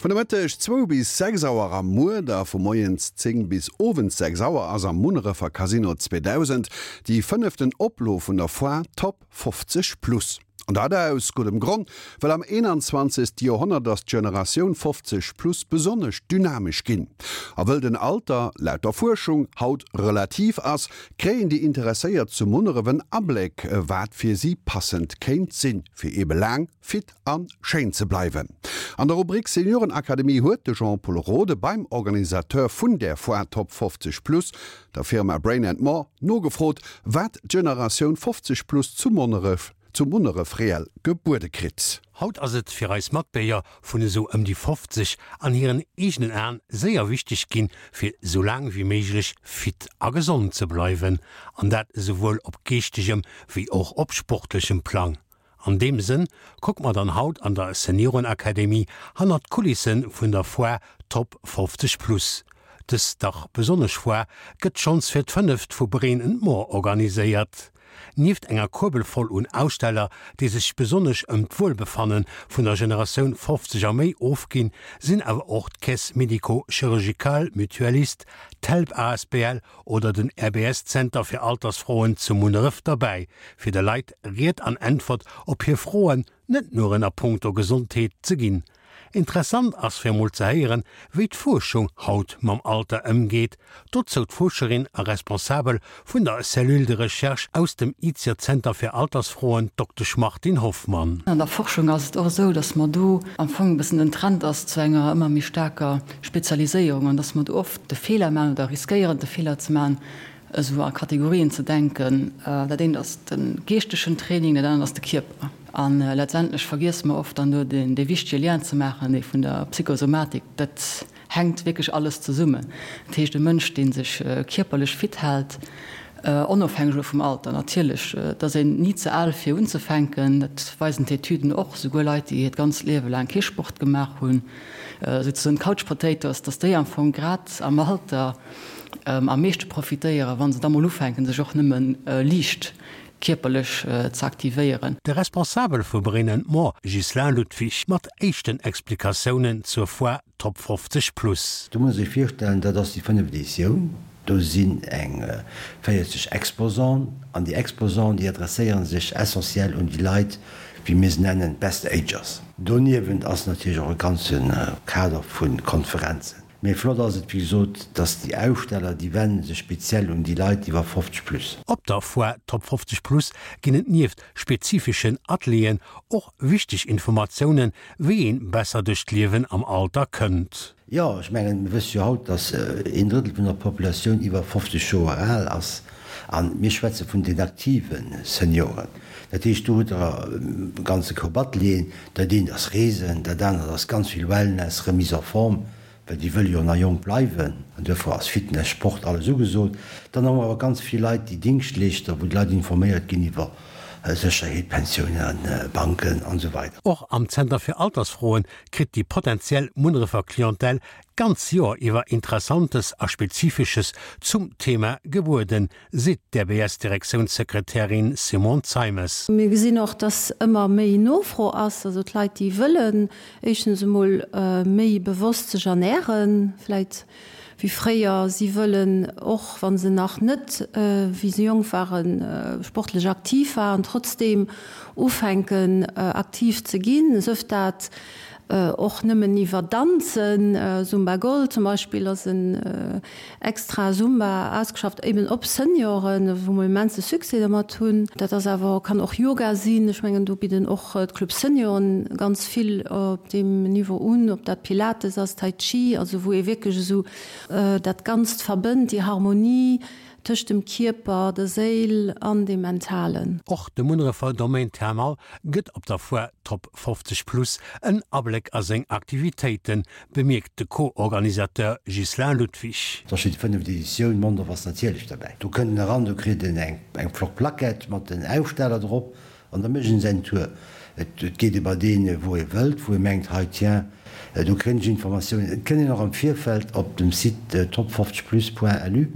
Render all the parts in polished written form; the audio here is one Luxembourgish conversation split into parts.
Vun de Mëtteg zwou bis 6 Auer am Muer a vu moies 10 bis owends 6 Auer ass am Munnerefer Casino 2000 déi fënneften Oplo vun der Foire Top 50 Plus. An dat aus guddem Gronn, well am 21. Joerhonnert ass d'Generatioun 50 Plus besonnesch dynamesch ginn. A wëll den Alter, laut der Fuerschung, haut relativ ass, kréien déi Interesséiert zu Munneref en Abléck, wat fir si passend kéint sinn, fir eebe laang fit a schéin ze bleiwen. An der Rubrik Seniorenakademie huet de Jean-Pol Rode beim Organisateur vun där Foire Top 50 Plus, der Firma Brain and More, nogefrot, wat d'Generatioun 50 plus zu Monneref zu Munneref reell gebuede kritt. Haut ass et fir eis Matbierger vun esou ëm déi 50 an hiren eegenen Aen séier wichteg ginn, fir esou laang wéi méiglech fit a gesond ze bleiwen, an dat esouwuel op geeschtegem wéi och op sportlechem Plang. An deem Sënn kucke mer dann haut an der Seniorenakademie hannert d'Kulisse vun der Foire Top 50 Plus. Dës dach besonnesch Foire gëtt schonns fir d'fënneft vu Brain and More organiséiert. Nieft enger Kuerbel voll un Aussteller, déi sech besonnesch ëm d'Wuelbefanne vun der Generatioun 50 a méi ofginn, sinn awer och d'Caisse Médico-Chirurgicale Mutualiste, d'Help asbl oder den RBS-Zenter fir Altersfroen zu Munneref derbäi, fir de Leit Ried an Äntwert op hir Froen, net nuren a punkto Gesondheet, ze ginn. Interessant ass fir emol ze héieren, wéi d'Fuerschung haut mam Alter ëmgeet. Dozou d'Fuerscherin a Responsabel vun der Cellule de recherche aus dem IZIER-Zenter fir Altersfroen, d'Doktesch Martine Hoffmann. An der Forschung ass et och esou, datt mer do am Fong e bëssen den Trend ass zu enger ëmmer méi staarker Spezialiséierung an datt mer do oft de Feeler maachen oder riskéieren de Feeler ze maachen, esou a Kategorien ze denken. Dat eent ass de geeschtegen Training, dat anert ass de Kierper. A letztendlech vergiesse mer oft dann do dee wichtege Lien ze maachen, dee vun der Psychosomatik. Dat hänkt wierklech alles zesummen. Dat heescht, e Mënsch, dee sech kierperlech fit hält, onofhängeg elo vum Alter natierlech, et ass een ni ze al fir unzefänken, dat weisen d'Etüden och, souguer Leit, déi hiert ganzt Liewe laang kee Sport gemaach hunn, souzesoen d'Couch Potatoes, dass déi am Fong grad am Alter am meeschte profitéieren, wa se da mol ufänken, sech och nëmme liicht kierperlech ze aktivéieren. De Responsabel vu Brain and More, Ghislain Ludwig, mat éischten Explikatiounen zur Foire Top 50 Plus. Do muss ee sech virstellen, dat ass déi fënneft Editioun. Do sinn eng 40 Exposanten an déi Exposanten, déi adresséiere sech essentiell un déi Leit, wéi mir se nennen, d'Best Agers. Doniewent ass natierlech och e ganze Kader vu Konferenzen. Mee flott ass et, wéi gesot, dass déi Aussteller, déi wende sech speziell un déi Leit iwwer 50 plus. Op der Foire Top 50 Plus ginn et nieft spezifeschen Atelieren och wichteg Informatiounen, wéi een besser duerch d'Liewen am Alter kënnt. Jo, ech mengen, mir wësse jo haut, dass een Drëttel vun der Populatioun iwwer 50 Joer al ass. A mir schwätze vun den aktive Senioren. Dat heescht, do hutt Der e ganze Koup Atelieren. Dat eent ass Reesen, dat anert ass ganz vill Wellness, Remise en forme, well déi wëlle jo nach jonk bleiwen. An duerfir ass Fitness, Sport, alles ugesot. Dann hu mer awer ganz vill Leit, déi Dingschtleeschter, wou d'Leit informéiert ginn iwwer Sécherheet, Pensiounen, Banken an esou weider. Och am Zenter fir Altersfroen kritt déi potentiell Munnerefer Clientèle d'ganz Joer iwwer Interessantes a Spezifesches zum Thema gebueden, seet d'RBS-Direktiounssekretärin Simone Zeimes. Mir gesinn och, dass ëmmer méi Nofro ass, also d'Leit, déi wëllen éischtens emol méi bewosst sech ernären, vläit wéi fréier. Si wëllen och, wa se nach net, wéi se jonk waren, sportlech aktiv waren, trotzdeem ufänken aktiv ze ginn, sëf dat och nëmmen iwwer Danzen. Zumba Gold zum Beispill ass en extra Zumba ausgeschafft eben op Senioren, wou mer immense Succès dermat hunn. Dat ass awer, kann och Yoga sinn. Ech mengen do bidden och d'Club Senioren ganz vill op deem Niveau un, ob dat Pilates ass, Tai Chi, also wou ee wierklech esou dat Ganzt verbënnt, déi Harmonie tëscht dem Kierper, der Séil an dem Mentalen. Och de Munnerefer Domaine Thermal gëtt op der Foire Top 50 Plus en Abléck a seng Aktivitéiten, bemierkt de Co-Organisateur Ghislain Ludwig. Et ass jo déi fënneft Editioun, Mondorf ass natierlech derbäi. Do kënnt en eran, do kritt en eng flott Plaquette mat den Aussteller drop an da mécht en säin Tour. Et geet ee bei deen, wou ee wëllt, wou ee mengt, hei tiens. Do kréien ech Informatiounen. Et kënnt een och am Virfeld op dem Site top50plus.lu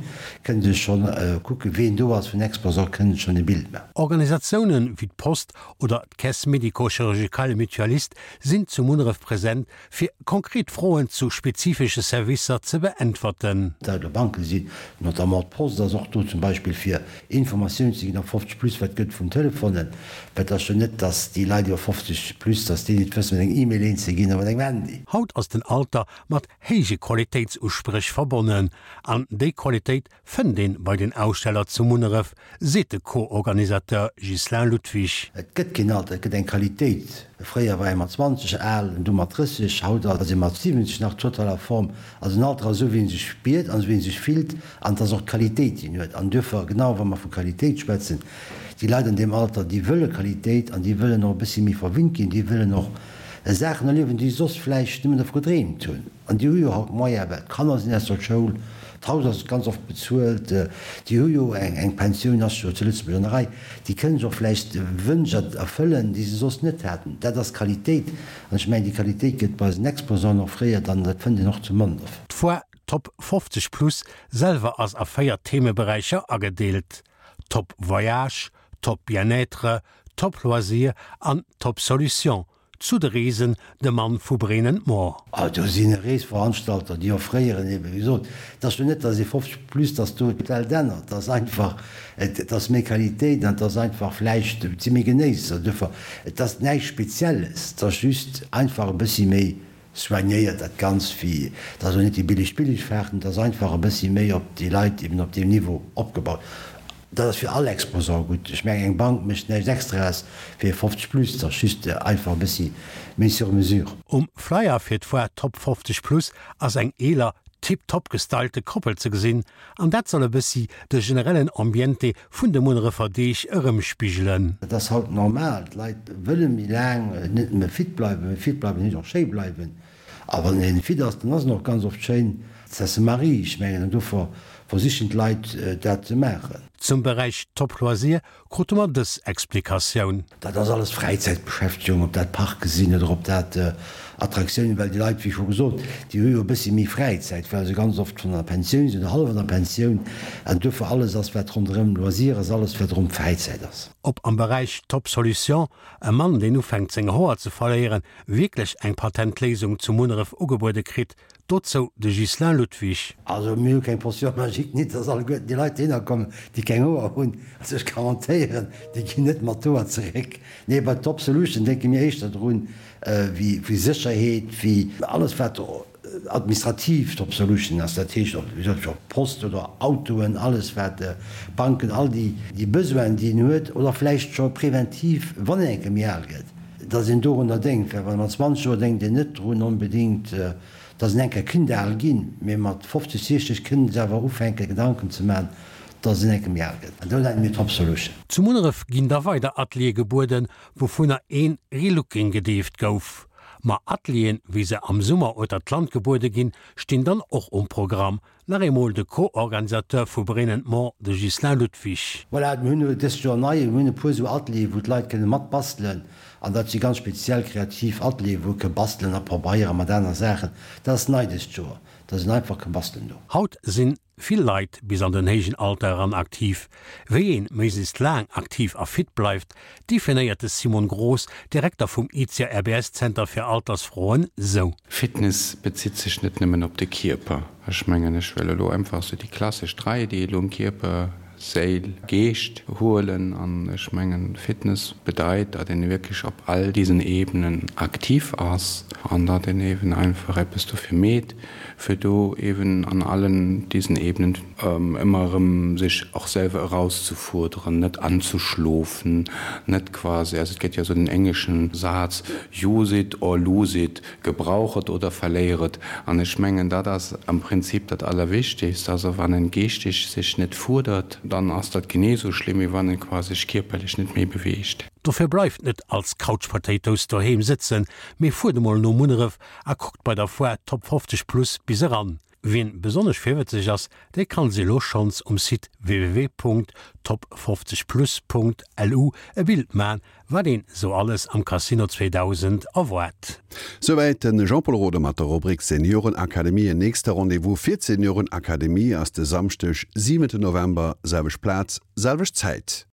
kënnt ee schonn kucken, ween do ass vun Exposant, kënnt ee schonn e Bild maachen. Organisatiounen wéi d'Post oder d'Caisse médico-chirurgicale mutualiste sinn zu Munneref present, fir konkret Froen zu spezifesche Servicer ze beäntwerten. Dat elo Banke sinn, notamment d'Post ass och do zum Beispill fir Informatioun ze ginn op 50 plus, wat gëtt vun Telefonen, well et ass jo net, datt déi Leit iwwer 50 plus, datt déi net wëssen, mat engem E-Mail eens ze ginn a mat engem Handy. Haut ass den Alter mat héije Qualitéitsuspréch verbonnen. An déi Qualitéit fënnt een bei den Aussteller zu Munneref, seet de Co-Organisateur Ghislain Ludwig. Et gëtt keen Alter, et gëtt eng Qualitéit. Fréier war ee mat 20 al, du mat 30, haut ass ee mat 70 nach total a Form. Also den Alter ass esou wéi ee sech spiert an esou wéi ee sech fillt an et ass och d'Qualitéit déi en huet. An duerfir, genau wa mer vu Qualitéit schwätzen, déi Leit an deem Alter, déi wëlle Qualitéit an déi wëllen och e bëssi méi verwinnt ginn, déi wëllen och Saachen erliewen, déi se soss vläicht nëmmen dervu gedreemt hunn. An déi hu jo haut Moyen, well d'Kanner sinn aus der Schoul, d'Haus ass ganz oft bezuelt, déi hu jo eng Pensioun, ass jo zu Lëtzebuerg an der Rei, déi kënnen sech och vläicht Wënsch erfëllen, déi se soss net haten. Dat ass Qualitéit. An ech mengen, déi Qualitéit gëtt bei eisen Exposanten offréiert an dat fënnt een och zu Mondorf. D'Foire Top 50 Plus selwer ass a 4 Themeberäicher agedeelt, Top Voyage, Top Bien-être, Top Loisir an Top Solution. Zu de Reesen, de Mann vu Brain and More. Ah, do sinn Reesveranstalter, déi offréieren eben, wéi gesot, et ass jo net, datt ee 50 plus, datt do d'Welt ännert, et ass einfach, et ass méi Qualitéit an et ass einfach vläicht, et si méi Genéisser duerfir, et ass näischt Spezielles, et ass just einfach e bëssi méi soignéiert dat Ganzt, wéi, et ass och net déi billig Billigfahrten, et ass einfach e bëssi méi op déi Leit eben op deem Niveau opgebaut. Dat ass fir all Exposant gutt. Ech mengen, eng Bank mécht näischt Extraes fir 50 plus, et ass just einfach e bëssi méi sur mesure. Um Flyer fir d'Foire Top 50 Plus ass eng eeler, tiptop gestylte Koppel ze gesinn, an dat soll e bëssi de generellen Ambiente vun de Munnerefer Deeg erëmspigelen. Dat ass haut normal, d'Leit wëlle méi laang net nëmme fit bleiwen, mee fit bleiwen heescht och schéi bleiwen. A wann een fit ass, dann ass en och ganz oft schéin. Ça se marie, ech mengen, an dofir versichen d'Leit dat ze maachen. Zum Beräich Top Loisir krute mer dës Explikatioun. Dat ass alles Fräizäitbeschäftegung, ob dat Parke sinn oder ob dat Attraktiounen, well déi Leit, wéi scho gesot, déi hu jo e bëssi méi Fräizäit, well se ganz oft schonn an der Pensioun sinn oder hallef an der Pensioun. An duerfir alles ass, wat ronderëm Loisir ass, alles wat ronderëm Fräizäit ass. Ob am Beräich Top Solution, e Mann deen ufänkt seng Hoer ze verléieren, wierklech eng Patentléisung zu Munneref ugebuede kritt, dozou de Ghislain Ludwig. Also mir hu keng Potion magique, nit dass alleguerten déi Leit dohinner kommen, déi keng Hoer hunn. Also ech garantéieren, déi ginn net mat Hoer zeréck. Nee, bei Top Solution denke mir éischter drun, wéi Sécherheet, wéi alles wat administrativ Top Solution ass, dat heescht ob Post oder Autoen, alles wat Banken, all déi Besoinen déi een huet oder vläicht scho preventiv, wann een eng Kéier méi al gëtt. Datt een dorunner denkt, well mat 20 Joer denkt een net drun onbedéngt, datt een eng Kéier kinnt al ginn, mee mat 50, 60 kënnt een awer ufänken Gedanken ze maachen, datt een eng Kéier méi al gëtt. An do nenne mir Top Solution. Zu Munneref ginn da weider Ateliere gebueden, wouvunner een Relooking gedeeft gouf. Ma Atelieren, wéi se am Summer ueter d'Land gebuede ginn, stinn dann och um Programm. Nach eemol de Co-Organisateur vu Brain and More, de Ghislain Ludwig. Voilà, mir hunn dëst Joer nei, mir hunn e puer esou Atelieren, wou d'Leit kënne mat bastelen. An dat si ganz speziell kreativ Atelieren, wou e ke bastelen a probeiere mat aner Saachen. Dat ass nei dëst Joer, dass een einfach ke bastelen do. Haut sinn vill Leit bis an den héijen Alter eran aktiv. Wéi een méiglechst laang aktiv a fit bleift, definéiert de Simon Groß, Direkter vum ICIA RBS Zenter fir Altersfroen, sou. Fitness bezitt sech net nëmmen op de Kierper. Ech mengen, ech wëll elo einfach sou déi klassesch Dräideelung, Kierper, Séil, Geescht huelen. An ech mengen, Fitness bedeit, datt een wierklech op all diesen Ebenen aktiv ass an datt een eben einfach eppes dofir meet, fir do eben an allen diesen Ebenen ëmmer erëm sech och selwer erauszefuerderen, net anzuschlofen, net quasi, also et gëtt jo esou den engleschen Saz, use it or lose it, gebrauch et oder verléier et. An ech mengen, dat ass am Prinzip dat Allerwichtigst. Also wann en geeschteg sech net fuerdert, dann ass dat genee esou schlimm, wéi wann en quasi sech kierperlech net méi beweegt. Dofir bleift net als Couch Potatoes doheem sëtzen, mee fuert emol no Munneref a kuckt bei der Foire Top 50 Plus bis eran. Wien besonnesch virwëtzeg ass, dee kann sech elo schonns um Site www.top50plus.lu e Bild man, wat een sou alles am Casino 2000 erwaart. Souwäit de Jean-Pol Roden mat der Rubrik Seniorenakademie. En nächste Rendez-vous fir d'Seniorenakademie ass de Samschdeg, 7 November, selwecht Plaz, selwecht Zäit.